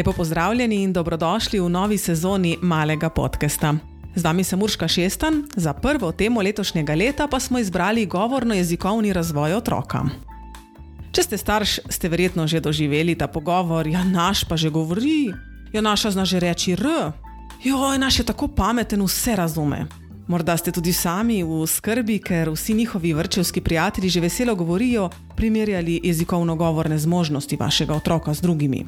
Lepo pozdravljeni in dobrodošli v novi sezoni Malega podcasta. Z vami sem Urška Šestan, za prvo temo letošnjega leta pa smo izbrali govorno-jezikovni razvoj otroka. Če ste starš, ste verjetno že doživeli ta pogovor, ja naš pa že govori, ja naša zna že reči R, joj, naš je tako pameten, vse razume. Morda ste tudi sami v skrbi, ker vsi njihovi vrtčevski prijatelji že veselo govorijo, primerjali jezikovno-govorne zmožnosti vašega otroka z drugimi.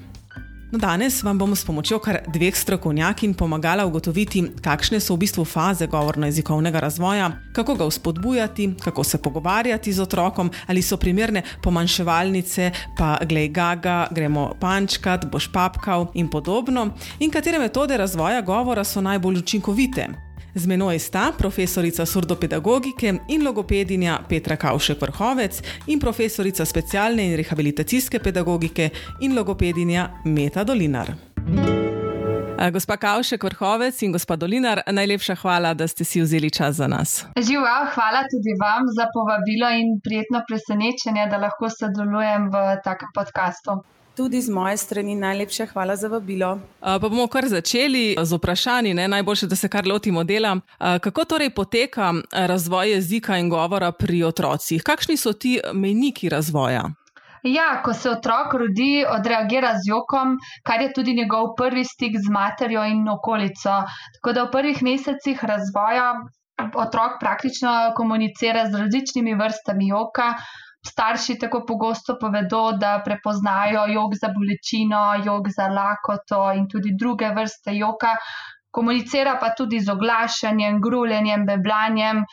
No, danes vam bom s pomočjo kar dveh strokovnjakinj pomagala ugotoviti, kakšne so v bistvu faze govorno-jezikovnega razvoja, kako ga vzpodbujati, kako se pogovarjati z otrokom, ali so primerne pomanjševalnice, pa glej gaga, gremo pančkat, boš papkal in podobno, in katere metode razvoja govora so najbolj učinkovite. Z menoj sta profesorica surdopedagogike in logopedinja Petra Kavšek-Vrhovec in profesorica specialne in rehabilitacijske pedagogike in logopedinja Meta Dolinar. Gospa Kavšek-Vrhovec in gospa Dolinar, najlepša hvala, da ste si vzeli čas za nas. Živijo, hvala tudi vam za povabilo in prijetno presenečenje, da lahko sodelujem v takem podcastu. Tudi z moje strani najlepša hvala za vabilo. Pa bomo kar začeli z vprašanji, najboljše, da se kar lotimo dela. Kako torej poteka razvoj jezika in govora pri otrocih? Kakšni so ti mejniki razvoja? Ja, ko se otrok rodi, odreagira z jokom, kar je tudi njegov prvi stik z materjo in okolico. Tako da v prvih mesecih razvoja otrok praktično komunicira z različnimi vrstami joka. Starši tako pogosto povedo, da prepoznajo jok za bolečino, jok za lakoto in tudi druge vrste joka. Komunicira pa tudi z oglašanjem, gruljenjem, beblanjem,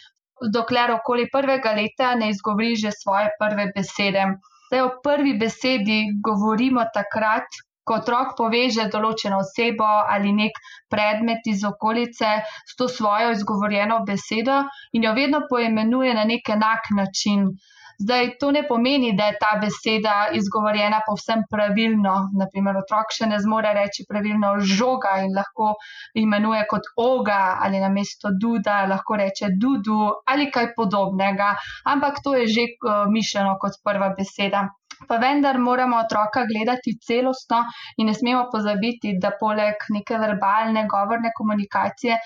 dokler okoli 1. leta ne izgovori že svoje prve besede. Zdaj, o prvi besedi govorimo takrat, ko otrok poveže določeno osebo ali nek predmet iz okolice s to svojo izgovorjeno besedo in jo vedno poimenuje na nek enak način. Zdaj, to ne pomeni, da je ta beseda izgovorjena povsem pravilno. Naprimer, otrok še ne zmore reči pravilno žoga in lahko imenuje kot oga ali namesto duda lahko reče dudu ali kaj podobnega. Ampak to je že mišljeno kot prva beseda. Pa vendar moramo otroka gledati celostno in ne smemo pozabiti, da poleg neke verbalne, govorne komunikacije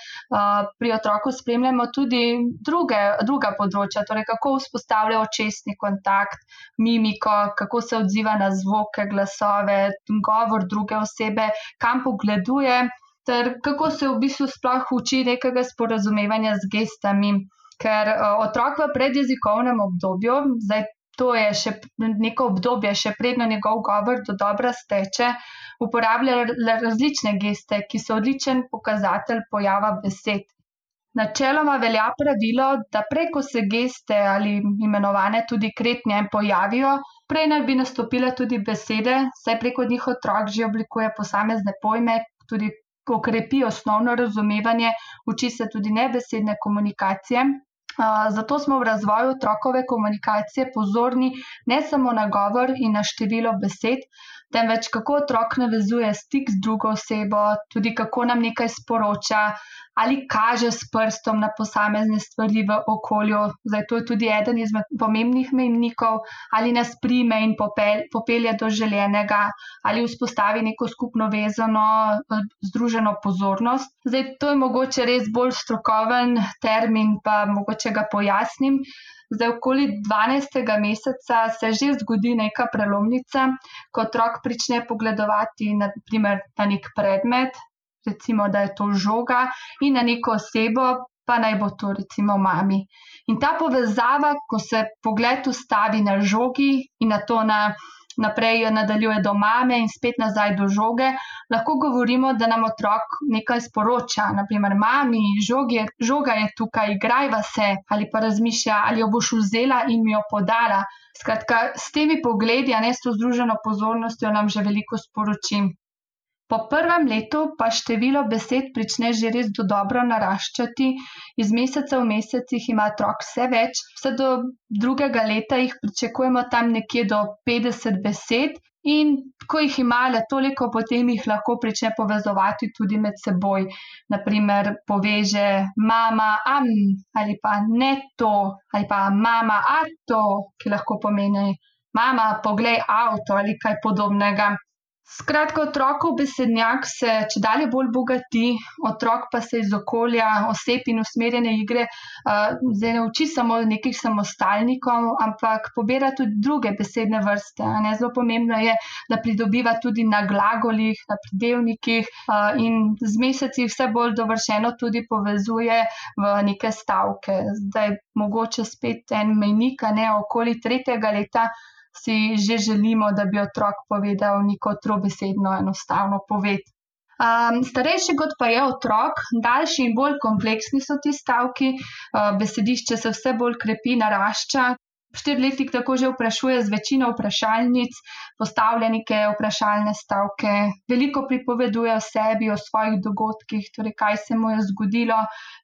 pri otroku spremljamo tudi druga področja, torej kako vzpostavlja očesni kontakt, mimiko, kako se odziva na zvoke, glasove, govor druge osebe, kam pogleduje, ter kako se v bistvu sploh uči nekega sporazumevanja z gestami. Ker otrok v predjezikovnem obdobju, zdaj to je še neko obdobje, še predno njegov govor do dobra steče, uporablja različne geste, ki so odličen pokazatelj pojava besed. Načeloma velja pravilo, da prej ko se geste ali imenovane tudi kretnje pojavijo, prej naj bi nastopile tudi besede, saj preko njih otrok že oblikuje posamezne pojme, tudi okrepi osnovno razumevanje, uči se tudi nebesedne komunikacije. Zato smo v razvoju otrokove komunikacije pozorni ne samo na govor in na število besed, temveč kako otrok navezuje stik z drugo osebo, tudi kako nam nekaj sporoča ali kaže s prstom na posamezne stvari v okolju. Zdaj, to je tudi eden izmed pomembnih mejnikov, ali nas prime in popelje do želenega, ali vzpostavi neko skupno vezano, združeno pozornost. Zdaj, to je mogoče res bolj strokoven termin, pa mogoče ga pojasnim. Zdaj, okoli 12. meseca se že zgodi neka prelomnica, ko otrok prične pogledovati na nek predmet, recimo, da je to žoga, in na neko osebo, pa naj bo to recimo mami. In ta povezava, ko se pogled ustavi na žogi in na to naprej nadaljuje do mame in spet nazaj do žoge, lahko govorimo, da nam otrok nekaj sporoča. Naprimer, mami, žoga je tukaj, igrajva se, ali pa razmišlja, ali jo boš vzela in mi jo podala. Skratka, s temi pogledi, a ne s to združeno pozornostjo, nam že veliko sporoči. Po prvem letu pa število besed prične že res dobro naraščati, iz meseca v mesecih ima otrok vse več, vse do 2. leta jih pričakujemo tam nekje do 50 besed in ko jih ima le toliko, potem jih lahko prične povezovati tudi med seboj. Naprimer, poveže mama, ali pa ne to, ali pa mama, a to, ki lahko pomeni mama, poglej avto ali kaj podobnega. Skratka, otrokov besednjak se čedalje bolj bogati, otrok pa se iz okolja, oseb in usmerjene igre zdaj ne uči samo nekih samostalnikov, ampak pobira tudi druge besedne vrste. Zelo pomembno je, da pridobiva tudi na glagolih, na pridevnikih in z meseci vse bolj dovršeno tudi povezuje v neke stavke. Zdaj mogoče spet en mejnik, okoli 3. leta si že želimo, da bi otrok povedal neko trobesedno enostavno poved. Starejši kot pa je otrok, daljši in bolj kompleksni so ti stavki, besedišče se vse bolj krepi, narašča. 4-letnik tako že vprašuje z večino vprašalnic, postavlja neke vprašalne stavke, veliko pripoveduje o sebi, o svojih dogodkih, torej kaj se mu je zgodilo,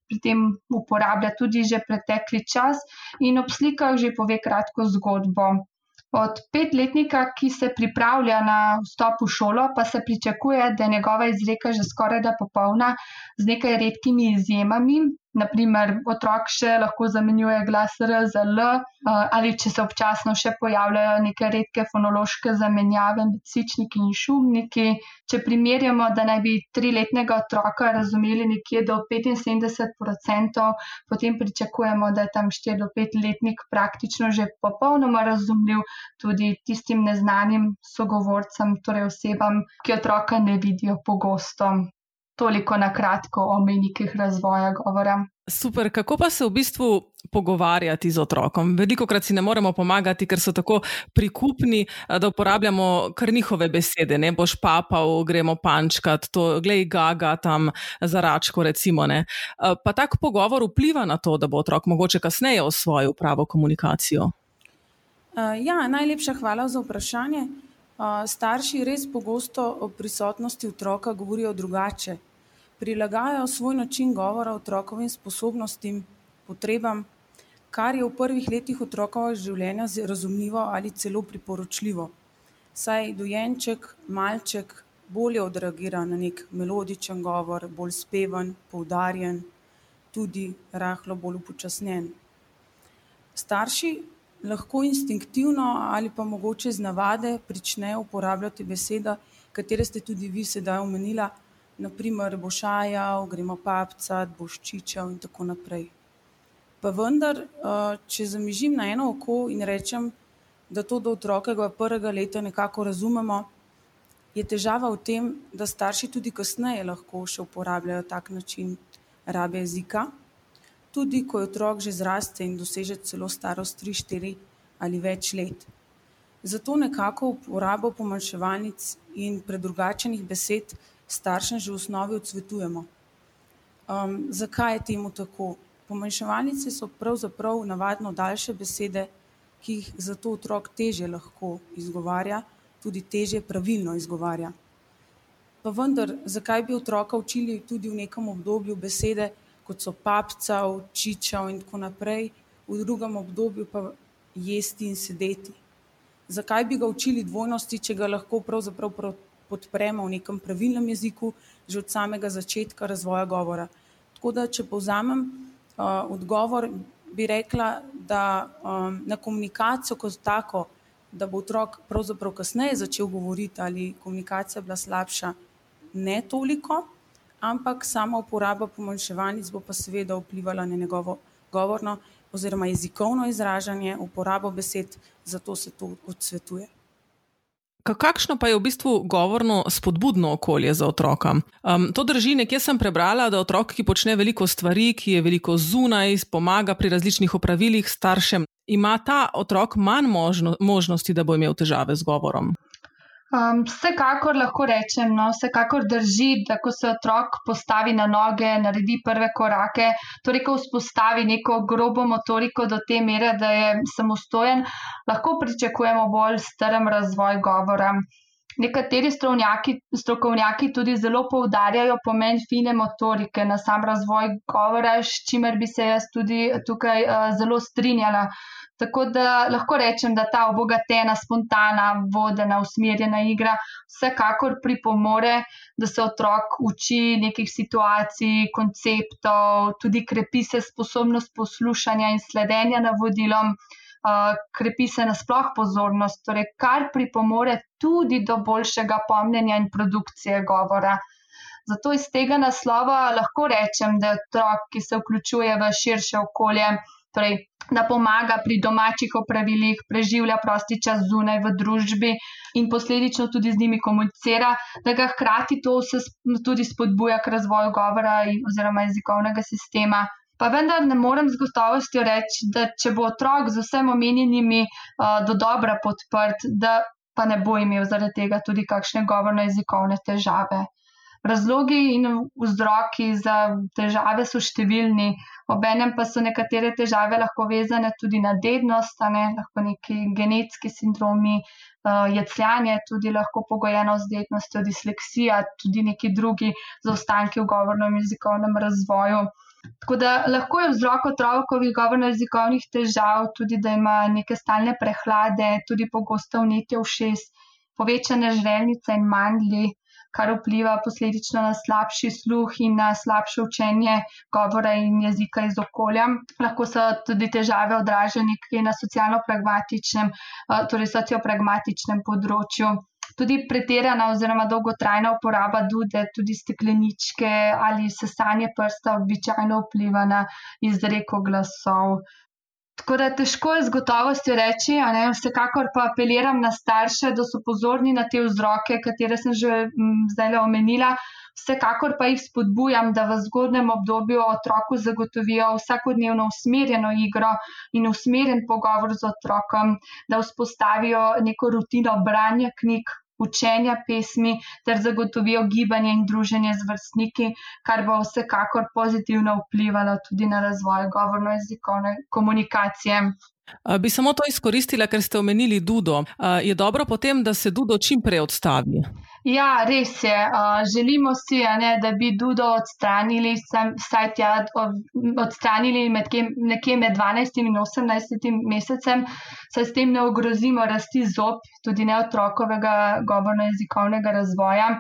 pri tem uporablja tudi že pretekli čas in ob slikah že pove kratko zgodbo. Od 5-letnika, ki se pripravlja na vstop v šolo, pa se pričakuje, da je njegova izreka že skorajda popolna z nekaj redkimi izjemami. Naprimer, otrok še lahko zamenjuje glas R za L ali če se občasno še pojavljajo neke redke fonološke zamenjave med sičniki in šumniki. Če primerjamo, da naj bi 3-letnega otroka razumeli nekje do 75%, potem pričakujemo, da je tam 4- do 5-letnik praktično že popolnoma razumljiv tudi tistim neznanim sogovorcem, torej osebam, ki otroka ne vidijo pogosto. Toliko na kratko o mejnikih razvoja govora. Super, kako pa se v bistvu pogovarjati z otrokom? Velikokrat si ne moremo pomagati, ker so tako prikupni, da uporabljamo kar njihove besede. Ne boš papal, gremo pančkat, to glej gaga tam za račko recimo. Ne. Pa tak pogovor vpliva na to, da bo otrok mogoče kasneje osvojil pravo komunikacijo? Najlepša hvala za vprašanje. Starši res pogosto o prisotnosti otroka govorijo drugače. Prilagajajo svoj način govora otrokovim sposobnostim, potrebam, kar je v prvih letih otrokovega življenja razumljivo ali celo priporočljivo. Saj dojenček, malček bolje odreagira na nek melodičen govor, bolj speven, poudarjen, tudi rahlo bolj upočasnjen. Starši lahko instinktivno ali pa mogoče z navade pričnejo uporabljati besede, katere ste tudi vi sedaj omenila, naprimer boš ajal, gremo papcat, boš čičal in tako naprej. Pa vendar, če zamižim na eno oko in rečem, da to do otrokovega 1. leta nekako razumemo, je težava v tem, da starši tudi kasneje lahko še uporabljajo tak način rabe jezika, tudi ko je otrok že zraste in doseže celo starost 3, 4 ali več let. Zato nekako uporabo pomanjševalnic in predrugačenih besed staršem že v osnovi odsvetujemo. Zakaj je temu tako? Pomanjševalnice so pravzaprav navadno daljše besede, ki jih zato otrok težje lahko izgovarja, tudi težje pravilno izgovarja. Pa vendar, zakaj bi otroka učili tudi v nekem obdobju besede, kot so papcav, čičav in tako naprej, v drugem obdobju pa jesti in sedeti? Zakaj bi ga učili dvojnosti, če ga lahko pravzaprav podpremo v nekem pravilnem jeziku že od samega začetka razvoja govora? Tako da, če povzamem odgovor, bi rekla, da na komunikacijo kot tako, da bo otrok pravzaprav kasneje začel govoriti ali komunikacija bila slabša, ne toliko, ampak sama uporaba pomanjševalnic bo pa seveda vplivala na njegovo govorno oziroma jezikovno izražanje, uporabo besed, zato se to odsvetuje. Kakšno pa je v bistvu govorno spodbudno okolje za otroka? To drži, nekje sem prebrala, da otrok, ki počne veliko stvari, ki je veliko zunaj, pomaga pri različnih opravilih staršem, ima ta otrok manj možnosti, da bo imel težave z govorom? Vsekakor lahko rečem, vsekakor drži, da ko se otrok postavi na noge, naredi prve korake, torej ko vzpostavi neko grobo motoriko do te mere, da je samostojen, lahko pričakujemo bolj strm razvoj govora. Nekateri strokovnjaki tudi zelo poudarjajo pomen fine motorike na sam razvoj govora, s čimer bi se jaz tudi tukaj zelo strinjala. Tako da lahko rečem, da ta obogatena, spontana, vodena, usmerjena igra vsekakor pripomore, da se otrok uči nekih situacij, konceptov, tudi krepi se sposobnost poslušanja in sledenja navodilom. krepi se nasploh pozornost, torej kar pripomore tudi do boljšega pomnjenja in produkcije govora. Zato iz tega naslova lahko rečem, da je otrok, ki se vključuje v širše okolje, torej da pomaga pri domačih opravilih, preživlja prosti čas zunaj v družbi in posledično tudi z njimi komunicira, da ga hkrati to vse tudi spodbuja k razvoju govora oziroma jezikovnega sistema. Pa vendar ne morem z gotovostjo reči, da če bo otrok z vsem omenjenimi dodobra podprt, da pa ne bo imel zaradi tega tudi kakšne govorno-jezikovne težave. Razlogi in vzroki za težave so številni, obenem pa so nekatere težave lahko vezane tudi na dednost, lahko neki genetski sindromi, jecljanje tudi lahko pogojeno z dednostjo, disleksija, tudi neki drugi zaostanki v govornem jezikovnem razvoju. Tako da lahko je vzrok otrokovih govorno-jezikovnih težav tudi, da ima neke stalne prehlade, tudi pogosto vnetje ušes, povečane žrelnice in mandlji, kar vpliva posledično na slabši sluh in na slabše učenje govora in jezika iz okolja. Lahko so tudi težave odražene na socialno-pragmatičnem, torej sociopragmatičnem področju. Tudi pretirana oziroma dolgotrajna uporaba dude, tudi stekleničke ali sesanje prsta običajno vpliva na izreko glasov. Tako da težko je z gotovostjo reči, vsekakor pa apeliram na starše, da so pozorni na te vzroke, katere sem že zdaj omenila. Vsekakor pa jih spodbujam, da v zgodnjem obdobju otroku zagotovijo vsakodnevno usmerjeno igro in usmerjen pogovor z otrokom, da vzpostavijo neko rutino branja knjig, učenja pesmi ter zagotovijo gibanje in druženje z vrstniki, kar bo vsekakor pozitivno vplivalo tudi na razvoj govorno-jezikovne komunikacije. Bi samo to izkoristila, ker ste omenili dudo. Je dobro potem, da se dudo čim prej odstavi? Ja, res je. Želimo si, da bi dudo odstranili, odstranili nekje med 12 in 18 mesecem, saj s tem ne ogrozimo rasti zob, tudi ne otrokovega govorno-jezikovnega razvoja.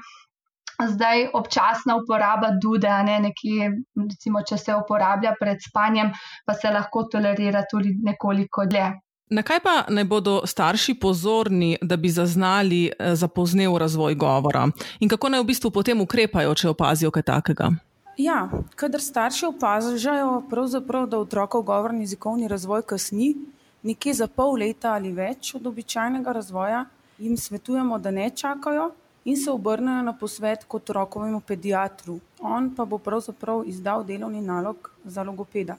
Zdaj občasna uporaba dude, nekje, recimo, če se uporablja pred spanjem, pa se lahko tolerira tudi nekoliko dlje. Na kaj pa naj bodo starši pozorni, da bi zaznali zapoznel razvoj govora? In kako naj v bistvu potem ukrepajo, če opazijo kaj takega? Ja, kadar starši opažajo pravzaprav, da otrokov govorni jezikovni razvoj kasni, nekje za pol leta ali več od običajnega razvoja, jim svetujemo, da ne čakajo in se obrnejo na posvet k otrokovemu pediatru. On pa bo pravzaprav izdal delovni nalog za logopeda.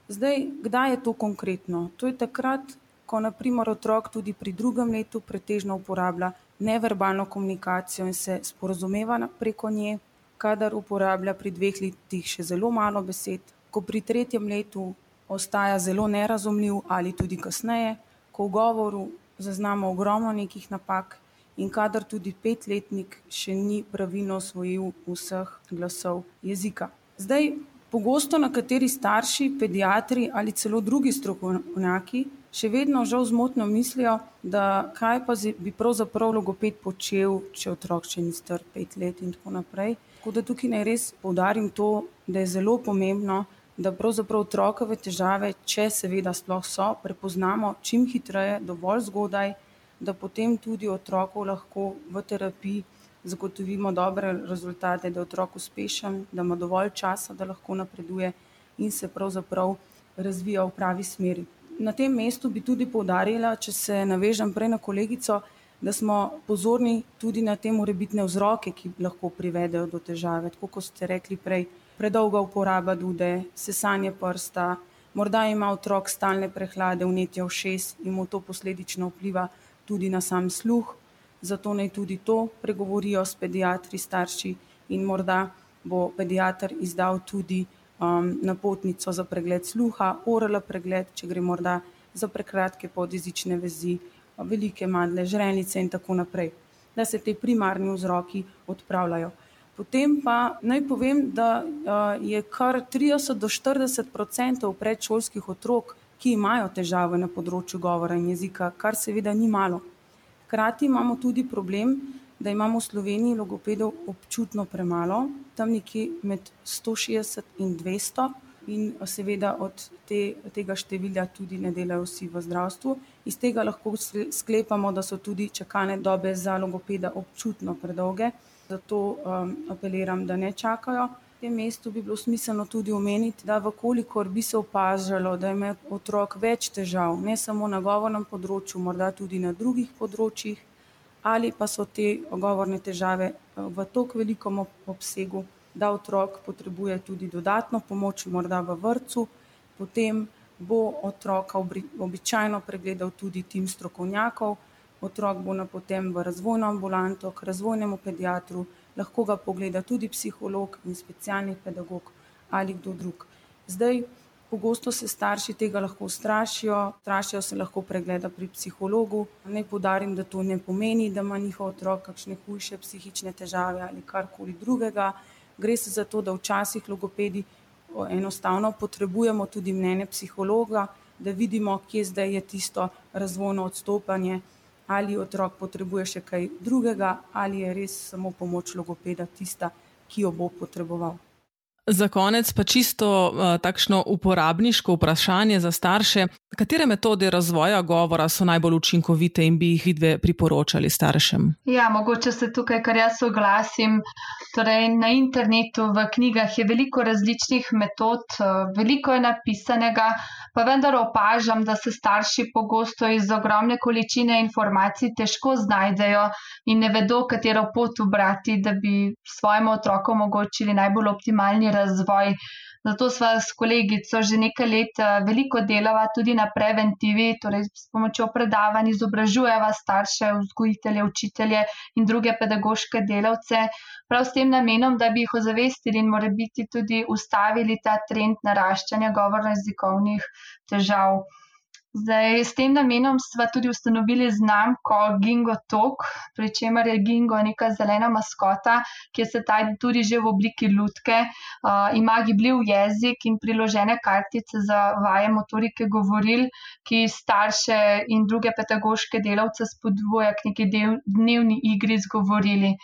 Zdaj, kdaj je to konkretno? To je takrat, ko na primer otrok tudi pri 2. letu pretežno uporablja neverbalno komunikacijo in se sporazumeva preko nje, kadar uporablja pri 2 letih še zelo malo besed, ko pri 3. letu ostaja zelo nerazumljiv ali tudi kasneje, ko v govoru zaznamo ogromno nekih napak in kadar tudi 5-letnik še ni pravilno osvojil vseh glasov jezika. Zdaj, pogosto nekateri starši, pediatri ali celo drugi strokovnjaki še vedno žal zmotno mislijo, da kaj pa bi pravzaprav logoped počel, če otrok še ni star 5 let in tako naprej. Tako da tukaj naj res poudarim to, da je zelo pomembno, da pravzaprav otrokove težave, če seveda sploh so, prepoznamo čim hitreje, dovolj zgodaj, da potem tudi otroku lahko v terapiji zagotovimo dobre rezultate, da je otrok uspešen, da ima dovolj časa, da lahko napreduje in se pravzaprav razvija v pravi smeri. Na tem mestu bi tudi poudarila, če se navežem prej na kolegico, da smo pozorni tudi na te morebitne vzroke, ki lahko privedejo do težave. Tako kot ste rekli prej, predolga uporaba dude, sesanje prsta, morda ima otrok stalne prehlade, vnetje ušes in mu to posledično vpliva tudi na sam sluh, zato naj tudi to pregovorijo s pediatri, starši in morda bo pediater izdal tudi napotnico za pregled sluha, oral pregled, če gre morda za prekratke podjezične vezi, velike mandle, žrelnice in tako naprej, da se te primarni vzroki odpravljajo. Potem pa naj povem, da je kar 30 do 40% predšolskih otrok, ki imajo težave na področju govora in jezika, kar seveda ni malo. Hkrati imamo tudi problem, da imamo v Sloveniji logopedov občutno premalo, tam nekje med 160 in 200 in seveda od tega števila tudi ne delajo vsi v zdravstvu. Iz tega lahko sklepamo, da so tudi čakalne dobe za logopeda občutno predolge, zato apeliram, da ne čakajo. V tem mestu bi bilo smiselno tudi omeniti, da vkolikor bi se opažalo, da ima otrok več težav, ne samo na govornem področju, morda tudi na drugih področjih, ali pa so te govorne težave v toliko velikem obsegu, da otrok potrebuje tudi dodatno pomoč, morda v vrtcu, potem bo otroka običajno pregledal tudi tim strokovnjakov, otrok bo napoten v razvojno ambulanto, k razvojnemu pediatru, lahko ga pogleda tudi psiholog in specialni pedagog ali kdo drug. Zdaj, pogosto se starši tega lahko strašijo se lahko pregleda pri psihologu. Naj poudarim, da to ne pomeni, da ima njihov otrok kakšne hujše psihične težave ali karkoli drugega. Gre se za to, da včasih logopedi enostavno potrebujemo tudi mnenje psihologa, da vidimo, kje zdaj je tisto razvojno odstopanje, ali otrok potrebuje še kaj drugega, ali je res samo pomoč logopeda tista, ki jo bo potreboval. Za konec pa čisto takšno uporabniško vprašanje za starše. Katere metode razvoja govora so najbolj učinkovite in bi jih vidve priporočali staršem? Ja, mogoče se tukaj, kar jaz oglasim. Torej, na internetu, v knjigah je veliko različnih metod, veliko je napisanega, pa vendar opažam, da se starši pogosto iz ogromne količine informacij težko znajdejo in ne vedo, katero pot ubrati, da bi svojemu otroku omogočili najbolj optimalni razvoj. Zato sva s kolegico že nekaj let veliko delava tudi na preventivi, torej s pomočjo predavanj izobražujeva starše, vzgojitelje, učitelje in druge pedagoške delavce, prav s tem namenom, da bi jih ozavestili in morebiti tudi ustavili ta trend naraščanja govorno-jezikovnih težav. Zdaj, s tem namenom sva tudi ustanovili znamko Gingo Talk, pri čemer je Gingo neka zelena maskota, ki se tudi že v obliki lutke, ima gibljiv jezik in priložene kartice za vaje motorike govoril, ki starše in druge pedagoške delavce spodbuja k neki dnevni igri z govorili.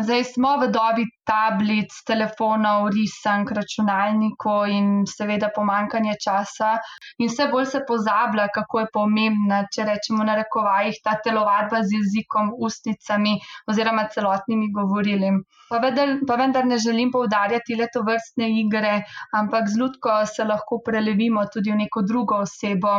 Zdaj smo v dobi tablic, telefonov, risank, računalnikov in seveda pomanjkanje časa in vse bolj se pozablja, kako je pomembna, če rečemo na narekovajih, ta telovadba z jezikom, ustnicami oziroma celotnimi govorili. Pa vendar ne želim poudarjati le tovrstne igre, ampak z lutko se lahko prelevimo tudi v neko drugo osebo,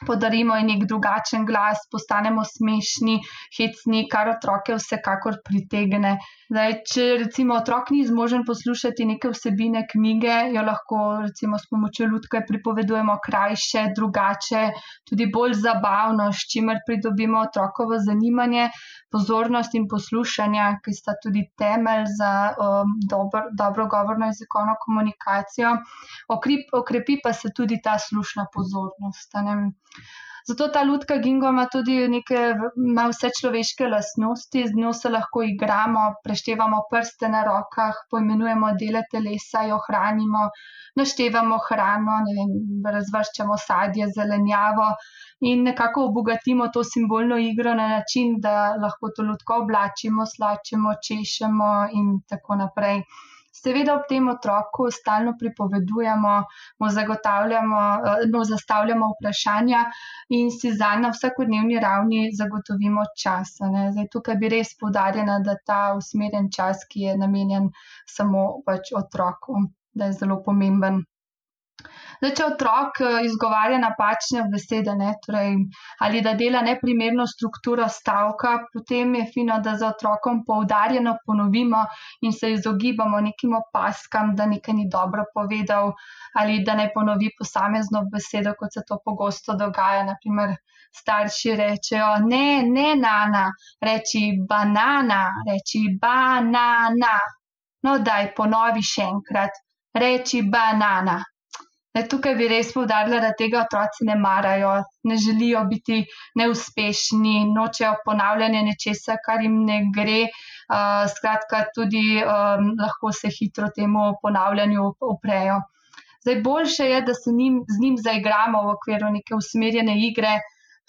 podarimo ji nek drugačen glas, postanemo smešni, hecni, kar otroke vsekakor pritegne. Zdaj, če recimo otrok ni zmožen poslušati neke vsebine knjige, jo lahko recimo s pomočjo lutke pripovedujemo krajše, drugače, tudi bolj zabavno, s čimer pridobimo otrokovo zanimanje, pozornost in poslušanje, ki sta tudi temelj za dobro govorno jezikovno komunikacijo. Okrepi pa se tudi ta slušna pozornost. Zato ta lutka Gingo ima vse človeške lastnosti, z njo se lahko igramo, preštevamo prste na rokah, poimenujemo dele telesa, jo hranimo, naštevamo hrano, razvrščamo sadje, zelenjavo in nekako obogatimo to simbolno igro na način, da lahko to lutko oblačimo, slačimo, češemo in tako naprej. Seveda ob tem otroku stalno pripovedujemo, mu zastavljamo vprašanja in si zanj na vsakodnevni ravni zagotovimo čas. Zdaj, tukaj bi res poudarjena, da ta usmerjen čas, ki je namenjen samo otroku, da je zelo pomemben. Zdaj, če otrok izgovarja napačne besede, torej, ali da dela neprimerno strukturo stavka, potem je fino, da za otrokom poudarjeno ponovimo in se izogibamo nekim opazkam, da nekaj ni dobro povedal ali da naj ponovi posamezno besedo, kot se to pogosto dogaja. Naprimer, starši rečejo, ne nana, reči banana, reči banana. No, daj, ponovi še enkrat, reči banana. Tukaj bi res poudarila, da tega otroci ne marajo, ne želijo biti neuspešni, nočejo ponavljanje nečesa, kar jim ne gre. Skratka, tudi lahko se hitro temu ponavljanju uprejo. Zdaj, boljše je, da se z njim zaigramo v okviru neke usmerjene igre,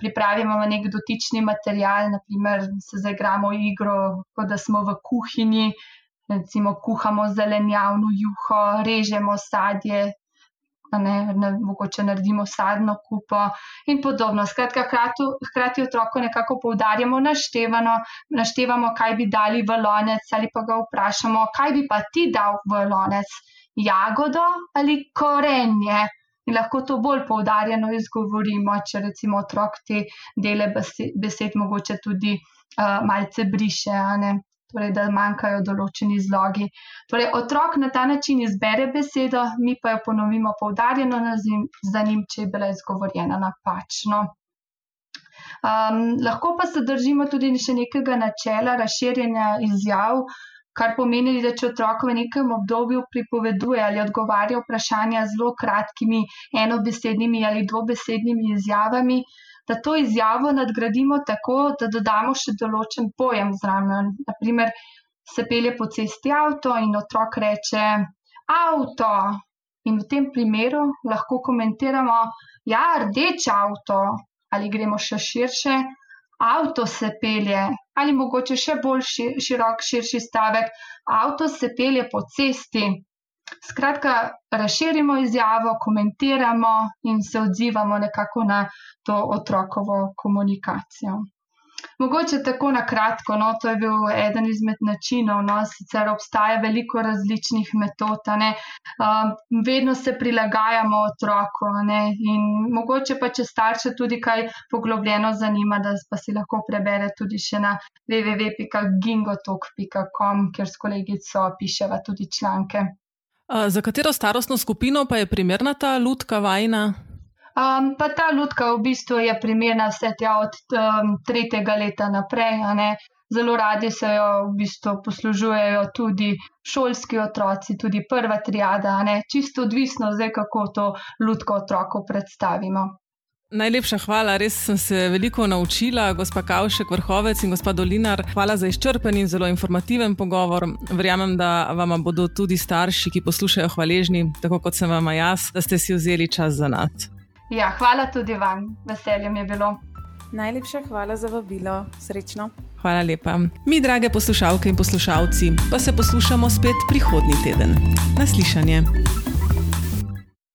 pripravimo nek dotični material, naprimer se zaigramo igro, kot da smo v kuhinji, recimo kuhamo zelenjavno juho, režemo sadje, mogoče naredimo sadno kupo in podobno. Skratka, hkrati otroku nekako poudarjamo naštevamo, kaj bi dali v lonec ali pa ga vprašamo, kaj bi pa ti dal v lonec, jagodo ali korenje. In lahko to bolj poudarjeno izgovorimo, če recimo otrok te dele besed mogoče tudi malce briše, torej da manjkajo določeni zlogi. Torej otrok na ta način izbere besedo, mi pa jo ponovimo poudarjeno za njim, če je bila izgovorjena napačno. Lahko pa se držimo tudi še nekega načela razširjanja izjav, kar pomeni, da če otrok v nekem obdobju pripoveduje ali odgovarja vprašanja zelo kratkimi enobesednimi ali dvobesednimi izjavami, da to izjavo nadgradimo tako, da dodamo še določen pojem zraven. Naprimer, se pelje po cesti avto in otrok reče avto. In v tem primeru lahko komentiramo, ja, rdeč avto, ali gremo še širše, avto se pelje, ali mogoče še bolj širši stavek, avto se pelje po cesti. Skratka, razširimo izjavo, komentiramo in se odzivamo nekako na to otrokovo komunikacijo. Mogoče tako na kratko, to je bil eden izmed načinov, sicer obstaja veliko različnih metod, vedno se prilagajamo otroku, in mogoče pa, če starše tudi kaj poglobljeno zanima, da pa si lahko prebere tudi še na www.gingotalk.com, kjer s kolegico piševa tudi članke. Za katero starostno skupino pa je primerna ta lutka vajina? Pa ta lutka v bistvu je primerna vse tja od 3. leta naprej. Zelo radi se jo v bistvu poslužujejo tudi šolski otroci, tudi prva triada. Čisto odvisno zdaj, kako to lutko otroku predstavimo. Najlepša hvala, res sem se veliko naučila, gospa Kavšek Vrhovec in gospa Dolinar. Hvala za izčrpen in zelo informativen pogovor. Verjamem, da vama bodo tudi starši, ki poslušajo, hvaležni, tako kot sem vama jaz, da ste si vzeli čas za nas. Ja, hvala tudi vam. Veselje mi je bilo. Najlepša hvala za vabilo. Srečno. Hvala lepa. Mi, drage poslušalke in poslušalci, pa se poslušamo spet prihodnji teden. Na slišanje.